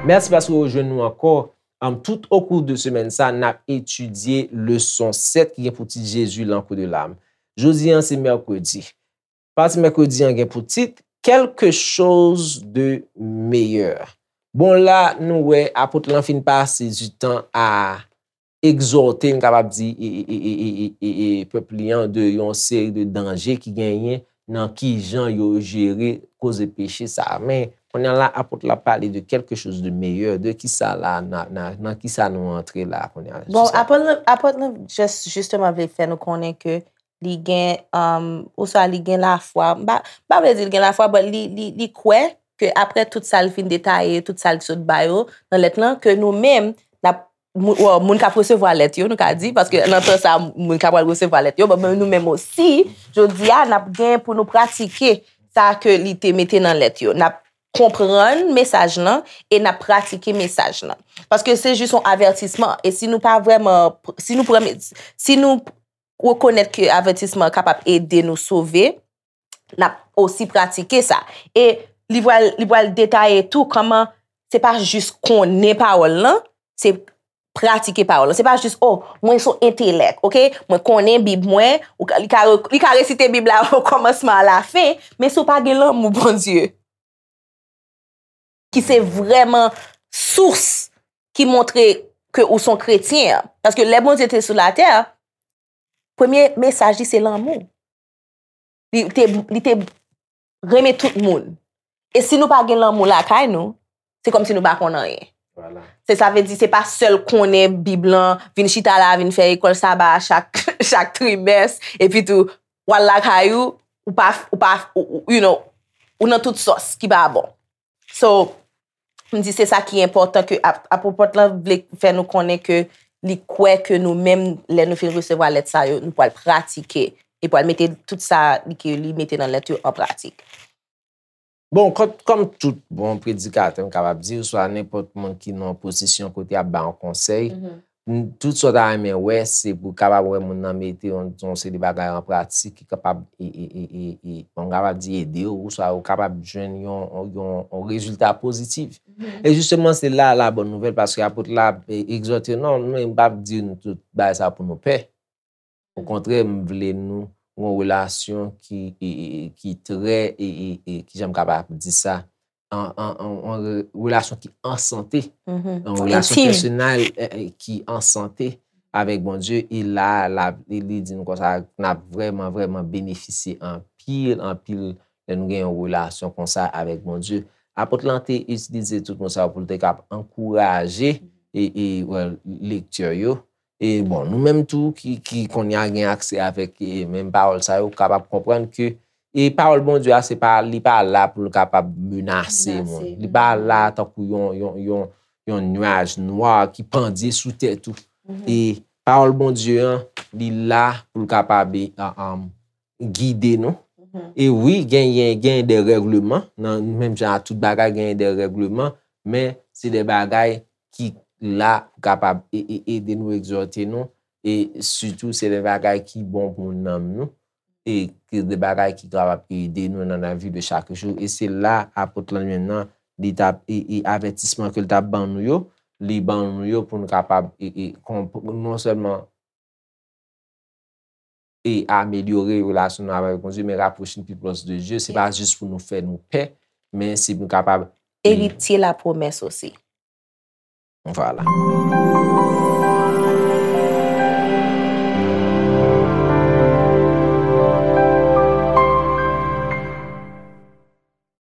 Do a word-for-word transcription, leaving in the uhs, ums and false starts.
Mèsi paske w rejwenn nou ankò. Am, tout okou de semèn sa, n ap etidye leson sèt ki gen pou tit Jésus, l'encre de l'âme. Jodi an, se mèkredi. Pati mèkredi an gen pou tit Quelque chose de meilleur. Bon, la, nou wè apot lan fin pase du tan a egzòte, m kapab di, e, e, e, e, e, e, e pèp li an de yon seri de danje ki genyen nan ki jan yo jere koze peche sa a. Men, kounye a la, apot la pale de quelque chose de meilleur. De ki sa la, nan, nan, nan ki sa nou antre la kounye a? Bon, apot lan, apot lan just, jisteman vle fè nou konnen ke li gen, um, oswa li gen lafwa. M pa, m pa vle di li gen lafwa, but li, li, li kwè ke apre tout sa l fin detaye, tout sa l sot ba yo nan lèt lan, ke nou menm, n ap, moun, well, moun k ap resevwa lèt yo, nou ka di, paske nan tan sa, moun k ap pral resevwa lèt yo, but nou menm osi, jodi a, n ap gen pou nou pratike sa ke li te mete nan lèt yo. N ap konprann mesaj lan e n ap pratike mesaj lan. Paske se jis yon avètisman. E si nou pa vrèman, si nou pran, si nou rekonèt ke avètisman an kapab ede nou sove, n ap osi pratike sa. E li pral, li pral detaye tou kòman se pa jis konnen pawòl lan, se pratike pawòl lan. Se pa jis, oh, mwen se yon entelèk, oke? Mwen konnen Bib mwen, ou ka, li ka, re- li ka resite Bib la o kòmansman a la fen, men si w pa gen lanmou Bondye, ki se vrèman sous ki montre ke ou se yon kretyen an. Paske lè Bondye te sou latè, premye mesaj li se lanmou. Li te, li te renmen tout moun. E si nou pa gen lanmou lakay nou, se kòmsi nou pa konn anyen. Vwala. Se sa vle di, se pa sèl konnen Bib lan, vin chita la, vin fè lekòl saba chak, chak trimès, epi tou, w al lakay ou, ou pa, ou pa, ou, ou, you know, ou nan tout sòs ki pa bon. So, m di se sa ki enpòtan ke ap- apot lan vle fè nou konnen ke li kwè ke nou menm, lè nou fin resevwa lèt sa yo, nou pral pratike, li pral mete tout sa li ke li mete nan lèt yo an pratik. Bon, kòm, kòm tout bon predikatè, m kapab di, oswa nenpòt moun ki nan yon pozisyon kote y ap ba yon konsèy, m- tout sa w ta renmen wè, se pou w kapab wè moun nan mete yon, yon seri de bagay an pratik ki kapab, e, e, e, e, e, bon, m kapab di ede w, oswa ou kapab jwenn yon, yon, yon rezilta pozitif. E jisteman, se la la bòn nouvèl, paske apot la, e, egzòte, non, men m p ap di nou tout bagay sa pou nou pè. Okontrè, m vle nou yon relasyon ki, e, e, e, ki trè, e, e, e, ki jan m kapab di sa, an, an, an, an re- relasyon ki an sante, yon relasyon pèsonèl, e, e, ki an sante avèk Bondye. E la, la, li, li di nou konsa, n ap vrèman, vrèman benefisye anpil, anpil lè nou gen yon relasyon konsa avèk Bondye. Apot lan te itilize tout mo sa yo pou l te kab ankouraje e, e, well, lektè yo. E bon, nou menm tou ki, ki kounye a gen aksè avèk e, menm pawòl sa yo, kapab konprann ke e pawòl Bondye a, se pa, li pa la pou l kapab menase moun. Li pa la tankou yon, yon, yon, yon nuaj nwa ki pandye sou tèt ou. E pawòl Bondye an, li la pou l kapab e, a- am, gide nou. E wi, genyen, genyen de règleman, nan menm jan a tout bagay, genyen de règleman, men se de bagay ki la pou kapab e- e- ede nou, egzòte nou, e sitou se de bagay ki bon pou nanm nou, e ki de bagay ki kapab ede nou nan lavi de chak jou. E se la apot lan menm nan, li t ap, e, e avètisman ke l t ap ban nou yo, li ban nou yo pou nou kapab, e, e, konp- non sèlman e amelyore relasyon nou avèk Bondye, men rapwoche nou pi pwòch de Dye. Se pa jis pou nou fè nou pè, men se pou nou kapab eritye lapwomès osi. Vwala.